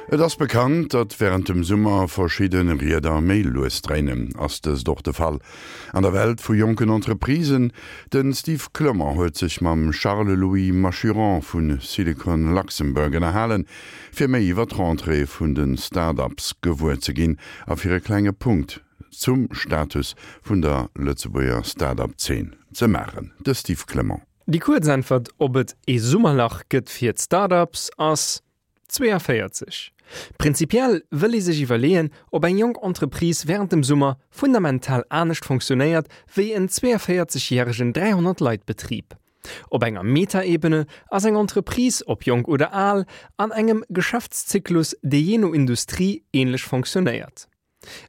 Et ass bekannt, datt wärend dem Summer verschidde Rieder méi lues dréinen. Ass dëst och de Fall an der Welt vu jonken Entreprisen? De Steve Clement huet sech mam Charles-Louis Machuron vu Silicon Luxembourg ënnerhalen, fir méi iwwer d'Rentrée vun de Start-ups gewuer ze ginn a fir e klenge Punkt zum Status vun der Lëtzebuerger Start-up-Zeen ze maachen. De Steve Clement. Déi kuerz Äntwert, ob et ee Summerlach gëtt fir d'Start-ups, ass 42. Prinzipiell wëll ee sech iwwerleeën, ob eng jonk Entreprise wärend dem Summer fundamental anescht fonctionnéiert wéi en 42 järegen 300 Leit Betrib. Op enger Metaebene ass eng Entreprise, ob jonk oder al, an engem Geschäftszyklus, dee jee no Industrie änlech fonctionnéiert.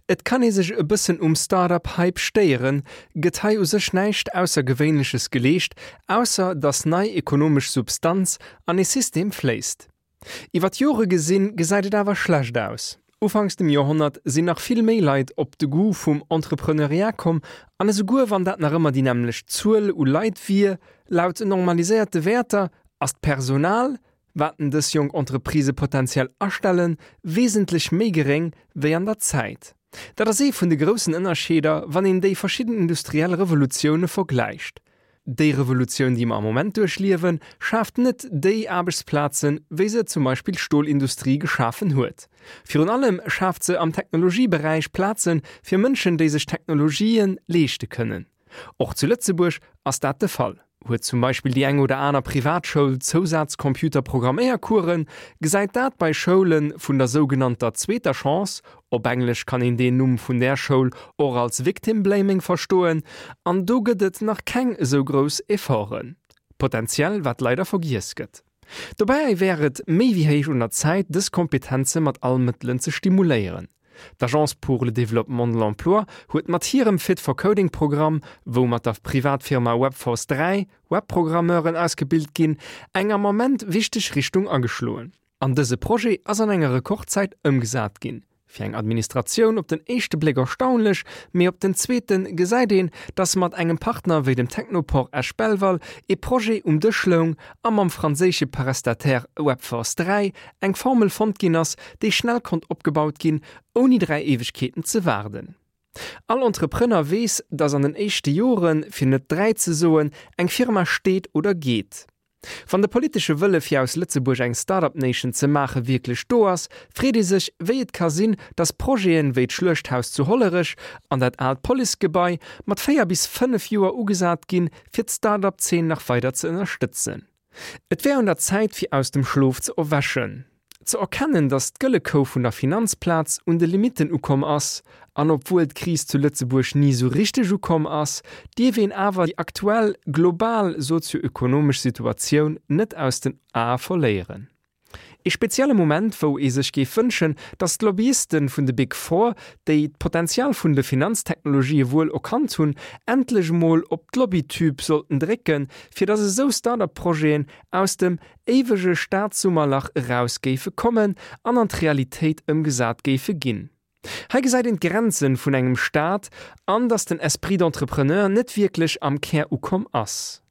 Et kann ee sech e bëssen um Start-up-Hype stéieren, gëtt hei u sech näischt Aussergewéinleches geleescht, ausser datt nei ekonomesch Substanz an ee System fléisst. Iwwer d'Jore gesinn, gesäit et awer schlecht aus. Ufanks dem Joerhonnert sinn nach vill méi Leit op de Goût vum Entrepreneuriat komm, an esouguer wann dat nach ëmmer déi nämmlecht Zuel u Leit wier, laut normaliséierte Wäerter, ass d'Personal, wat en dës jonk Entreprisë potenziell astellen, wesentlech méi geréng wéi an der Zäit. Dat ass ee vun de groussen Ënnerscheeder, wann een déi verschidden industriell Revolutioune vergläicht. Déi Revolutioun, déi mer am Moment duerchliewen, schaaft net déi Aarbechtsplazen, wéi se zum Beispill d'Stolindustrie geschafen huet. Virun allem schaaft se am Technologieberäich Plaze fir Mënschen, déi sech Technologië leeschte kënnen. Och zu Lëtzebuerg ass dat de Fall. Huet zum Beispill déi eng oder aner Privatschoul Zousaz-Computer-Programméiercoursen, gesäit dat bei Schoule vun der sougenannter zweeter Chance, op Englesch kann een deen Numm vun där Schoul och als Victim Blaming verstoen, an do gëtt et nach keng esou grouss Efforten. Potenziell, wat leider vergiess gëtt. Dobäi wär et méi wéi héich un der Zäit, dës Kompetenze mat all Mëttelen ze stimuléieren. D'Agence pour le développement de l'emploi huet mat hirem Fit for Coding Programm, wou mat der Privatfirma Webforce 3 Webprogrammeuren ausgebilt ginn, eng am Ament wichteg Richtung ageschloen. An dëse Projet ass an enger Rekordzäit ëmgesat ginn. Fir eng Administratioun op den éischte Bléck erstaunlech, mee op den zweete gesäit een, datt mat engem Partner wéi dem Technoport Esch-Belval ee Projet um Dësch loung a mam franséische Prestataire Webforce 3 eng Formel fonnt ginn ass, déi schnell konnt opgebaut ginn, ouni 3 Éiwegkeeten ze waarden. All Entrepreneur weess, datt an den éischte Joren, fir net 3 ze soen, eng Firma steet oder geet. Wann de politesche Wëlle fir aus Lëtzebuerg eng Start-up Nation ze maache wierklech do ass, freet ee sech, wéi et ka sinn, datt Projeten wéi d'Schluechthaus zu Hollerech an dat aalt Policegebai mat 4 bis 5 Joer ugesat ginn, fir d'Start-up Zeen nach weider ze ënnerstëtzen. Et wär un der Zäit fir aus dem Schlof ze erwächen. Ze erkennen, datt d'gëlle Kou vun der Finanzplaz un de Limitten ukomm ass, an obwuel d'Kris zu Lëtzebuerg ni sou richteg ukomm ass, dierf een awer déi aktuell global sozio-ökonomesch Situatioun net aus den Ae verléieren. Ee spezielle Moment, wou ee sech géif wënschen, datt d'Lobbyisten vun de Big Four, déi d'Potenzial vun de Finanztechnologië wuel erkannt hunn, endlech emol op d'Lobbytube sollten drécken, fir datt esou Start-up-Projeten aus dem éiwege Staatssummerlach eraus géife kommen an an d'Realitéit ëmgesat géife ginn. Hei gesäit een d'Grenzen vun engem Staat an datt den Esprit d'entrepreneur net wierklech am Kär ukomm ass.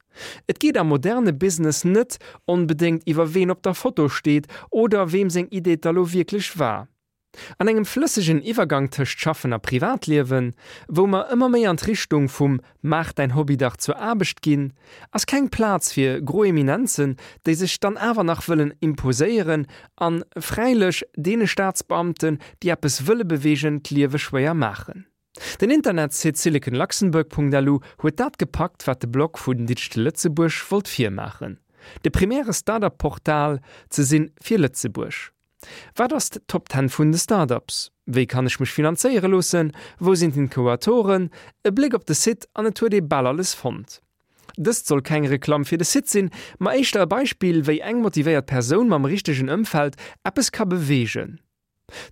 Et geet am moderne Business net onbedéngt iwwer ween op der Foto steet oder weem seng Idee et da lo wierklech war. An engem flëssegen Iwwergang tëscht Schaffen a Privatliewen, wou mer ëmmer méi an d'Richtung vum Maach däin Hobby dach zur Aarbecht ginn, ass keng Plaz fir gro Eminenzen, déi sech dann awer nach wëllen imposéieren an fräilech deene Staatsbeamten, déi eppes wëlle beweegen, d'Liewe schwéier maachen. Den Internetsite siliconluxembourg.lu huet dat gepackt, wat de Blog vun Digital Lëtzebuerg wollt virmaachen, de primäre Startup-Portal ze sinn fir Lëtzebuerg. Wat ass d'Top Ten vun de Startups? Wéi kann ech mech finanzéiere loossen? Wou sinn d'Inkubatoren? E Bléck op de Site an et huet ee bal alles fonnt. Dëst soll keng Reklamm fir de Site sinn, ma éischter e Beispill, wéi eng motivéiert Persoun mam richtegen Ëmfeld eppes ka beweegen.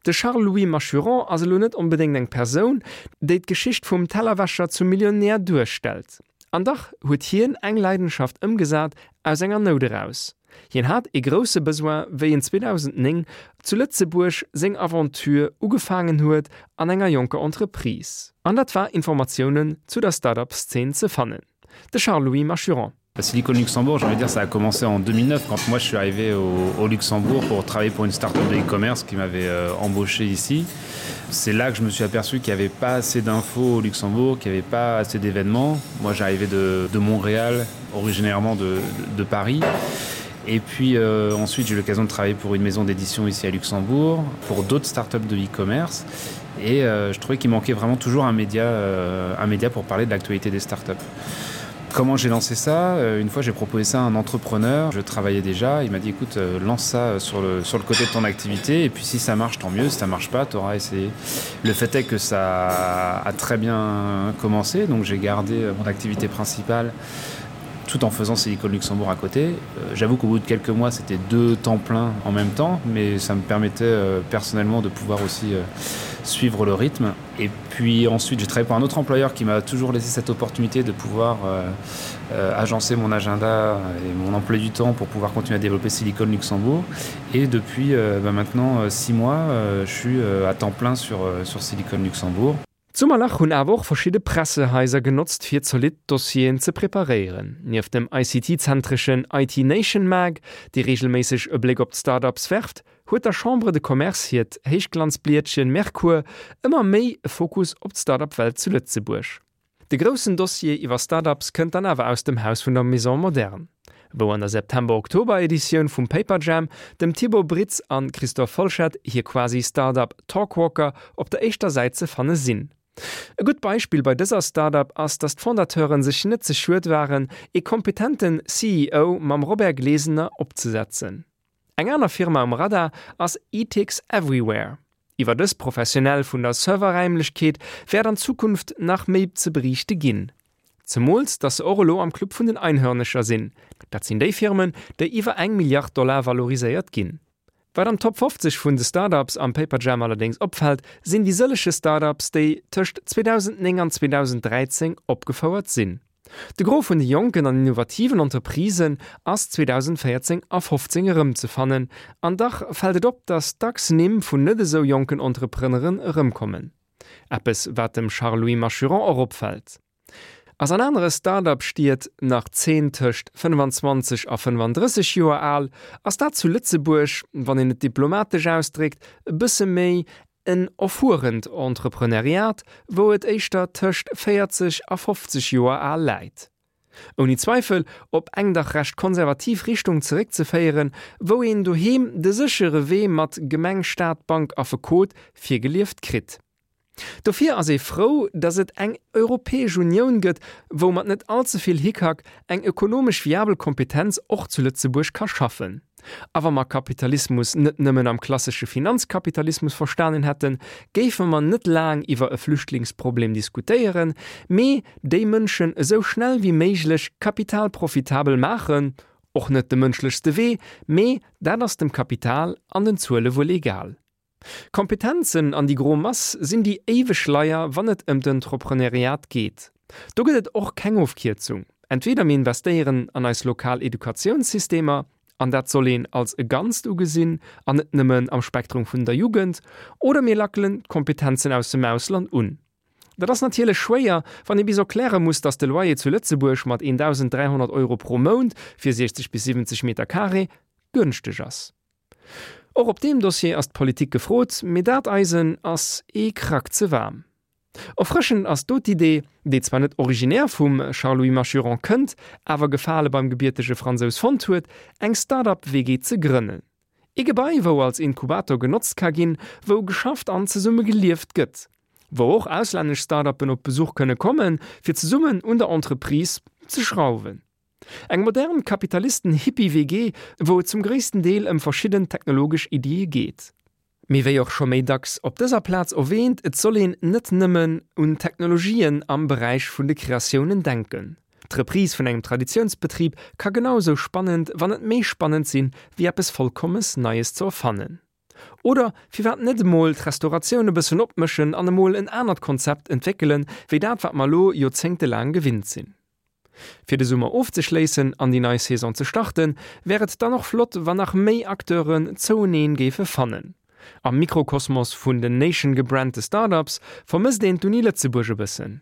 De Charles-Louis Machuron ass elo net onbedéngt eng Persoun, déi d'Geschicht vum Tellerwäscher zum Millionär duerstellt. An dach huet hien eng Leidenschaft ëmgesat aus enger Nout eraus. Hien hat ee grousse Besoin wéi en 2009 zu Lëtzebuerg seng Aventure ugefaangen huet an enger jonker Entreprise. An dat war Informatiounen zu der Start-up Szene ze fannen. De Charles-Louis Machuron. Silicon Luxembourg, j'ai envie de dire ça a commencé en 2009 quand moi je suis arrivé au, au Luxembourg pour travailler pour une start-up de e-commerce qui m'avait euh, embauché ici. C'est là que je me suis aperçu qu'il n'y avait pas assez d'infos au Luxembourg, qu'il n'y avait pas assez d'événements. Moi j'arrivais de, de Montréal, originairement de, de, de Paris. Et puis euh, ensuite j'ai eu l'occasion de travailler pour une maison d'édition ici à Luxembourg, pour d'autres start-up de e-commerce. Et euh, je trouvais qu'il manquait vraiment toujours un média, euh, un média pour parler de l'actualité des start-up. Comment j'ai lancé ça euh, Une fois j'ai proposé ça à un entrepreneur, je travaillais déjà, il m'a dit écoute euh, lance ça euh, sur le, sur le côté de ton activité et puis si ça marche tant mieux, si ça marche pas, tu auras essayé. Le fait est que ça a très bien commencé, donc j'ai gardé mon activité principale tout en faisant Silicon Luxembourg à côté. J'avoue qu'au bout de quelques mois, c'était deux temps pleins en même temps, mais ça me permettait personnellement de pouvoir aussi suivre le rythme. Et puis ensuite, j'ai travaillé pour un autre employeur qui m'a toujours laissé cette opportunité de pouvoir euh, euh, agencer mon agenda et mon emploi du temps pour pouvoir continuer à développer Silicon Luxembourg. Et depuis euh, bah, maintenant euh, six mois, euh, je suis euh, à temps plein sur, euh, sur Silicon Luxembourg. D'Summerlach hunn awer och verschidde Pressehaiser genotzt fir zolidd Dossieren ze preparéieren. Nieft dem ICT-zentreschen IT Nation Mag, dee reegelméisseg e Bléck op d'Start-ups werft, huet der Chambre de Commerce hiert Héichglanzblietchen Merkur ëmmer méi e Fokus op d'Start-up-Welt zu Lëtzebuerg. De groussen Dossier iwwer Start-ups kënnt dann awer aus dem Haus vun der Maison Moderne, wou an der September-Oktober-Editioun vum Paperjam dem Thibaut Britz an Christophe Folschette hir quasi Start-up Talkwalker op der éischter Säit ze fanne sinn. E gutt Beispill bei dëser Start-up ass, datt d'Fondateuren sech net ze schued waren, ee kompetenten CEO mam Robert Glesener opzesetzen. Eng aner Firma um Radar ass Etix Everywhere. Iwwer dës Professionell vun der Serverräimlechkeet wäert an Zukunft nach méi ze beriichte ginn. Zemools datt se och elo am Club vun den Einhörnecher sinn, dat sinn déi Firmen, déi iwwer eng Milliard Dollar valoriséiert ginn. Wat am Top 50 vun de Start-ups am Paperjam allerdéngs opfält, sinn déi sëllege Start-ups, déi tëscht 2009 an 2013 opgefouert sinn. De Gros vun de jonken an innovativen Entreprisen ass 2014 a 15 erëmzefannen, an dach fält et op, datt dacks Nimm vun net esou jonken Entrepreneuren erëmkommen. Eppes, wat dem Charles-Louis Machuron och opfält. Ass an anere Start-up-Stied nach d'Zeen tëscht 25 a 35 Joer al, ass dat zu Lëtzebuerg, wann een et diplomatesch ausdréckt, e bësse méi En erfuerent Entrepreneuriat, wou et éischter tëscht 40 a 50 Joer al läit. Ouni Zweifel op eng dach recht konservativ Richtung zeréckzeféieren, wou een doheem de séchere Wee mat Gemeng, Staat, Bank, Affekot virgelieft kritt. Dofir ass ee frou, datt et eng Europäesch Unioun gëtt, wou mat net all ze vill Hickhack eng ökonomesch viabel Kompetenz och zu Lëtzebuerg ka schaffen. A wa mer Kapitalismus net nëmmen am klassesche Finanzkapitalismus verstanen hätten, géife mer net laang iwwer e Flüchtlingsproblem diskutéieren, mee déi Mënschen esou schnell wéi méiglech kapitalprofitabel maachen, och net de mënschlechste Wee, mee dat ass dem Kapital an den Zuele wuel egal. Kompetenzen an déi gro Mass sinn déi éiweg Leier, wann et ëm d'Entrepreneuriat geet. Do gëtt et och keng Ofkierzung. Entweder mir investéieren an eis lokal Educatiounssystemer, an dat soll een als e Ganzt ugesinn an net nëmmen am Spektrum vun der Jugend, oder mir lackelen d'Kompetenzen aus dem Ausland un. Dat ass natierlech schwéier, wann ee bis erkläre muss, datt de Loyer zu Lëtzebuerg mat 1.300 Euro pro Mount fir 60 bis 70 Meter carré gënschteg ass. Och op deem Dossier ass d'Politik gefrot, mee dat Eisen ass ee Krack ze waarm. Erfrëschend ass do d'Idee, déi zwar net originär vum Charles-Louis Machuron kënnt, awer Gefale beim gebiertege Fransous fonnt huet, eng Start-up-WG ze grënnen. Ee Gebai, wou als Inkubator genotzt ka ginn, wou geschafft an zesumme gelieft gëtt. Wou och auslännesch Start-uppen op Besuch kënne kommen, fir zesummen un der Entreprise ze schrauwen. Eng modern Kapitalisten-Hippie-WG, wou et zum gréissten Deel ëm verschidden technologesch Iddie geet. Mee wéi och scho méi dacks op dëser Plaz erwähnt, et soll een net nëmmen un Technologien am Beräich vun de Kreatiounen denken. D'Reprise vun engem Traditiounsbetrib ka genau esou spannend, wann net méi spannend sinn, wéi eppes vollkommes Neies ze erfannen. Oder firwat net emol d'Restauratioun e bëssen opmëschen an emol en anert Konzept entwéckelen, wéi dat wat mer elo joerzéngtelaang gewinnt sinn. Fir de Summer ofzeschléissen an déi nei Saison ze starten, wär et dann och flott, wann nach méi Acteuren zoueneen géife fannen. Am Mikrokosmos vun den Nation gebrandte Startups vermësst een d'Uni Lëtzebuerg e bëssen.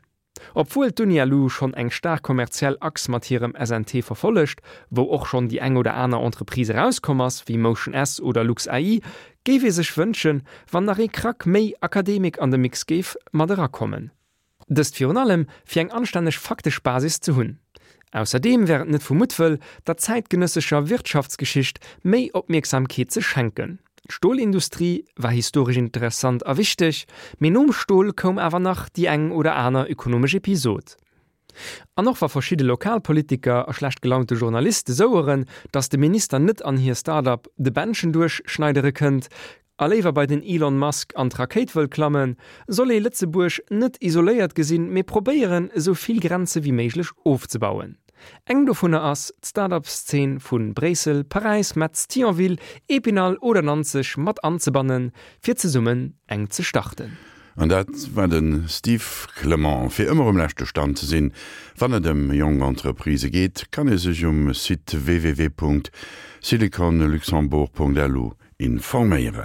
Obwuel d'UniLu schonn eng staark kommerziell Achs mat hirem SNT verfollegt, wou och schonn déi eng oder aner Entreprise erauskomm ass, wéi Motion S oder LuxAI, géif ee sech wënschen, wann nach ee Krack méi Akademik an de Mix géif mat erakommen. Dëst virun allem, fir eng anstänneg faktesch Basis ze hunn. Ausserdeem wär et net vu Muttwëll, der zäitgenëssescher Wirtschaftsgeschicht méi Opmierksamkeet ze schenken. D'Stolindustrie war historesch interessant a wichteg, mee nom Stol koum awer nach déi eng oder aner ökonomesch Episod. An och wa verschidde Lokalpolitiker a schlecht gelaunte Journaliste soueren, datt de Minister net an hir Start-up de Bändchen duerchschneidere kënnt a léiwer bei den Elon Musk an d'Rakéit wëll klammen, soll ee Lëtzebuerg net isoléiert gesinn, mee probéieren, esou vill Grenze wéi méiglech ofzebauen. Eng dovunner ass, d'Start-up-Szene vu Bréissel, Paräis, Metz, Thionville, Épinal oder Nanzeg mat anzebannen, fir zesummen eng ze starten. An dat war de Steve Clement. Fir ëmmer um leschte Stand ze sinn, wann et ëm jonk Entreprisë geet, kann ee sech um Site www.siliconluxembourg.lu informéieren.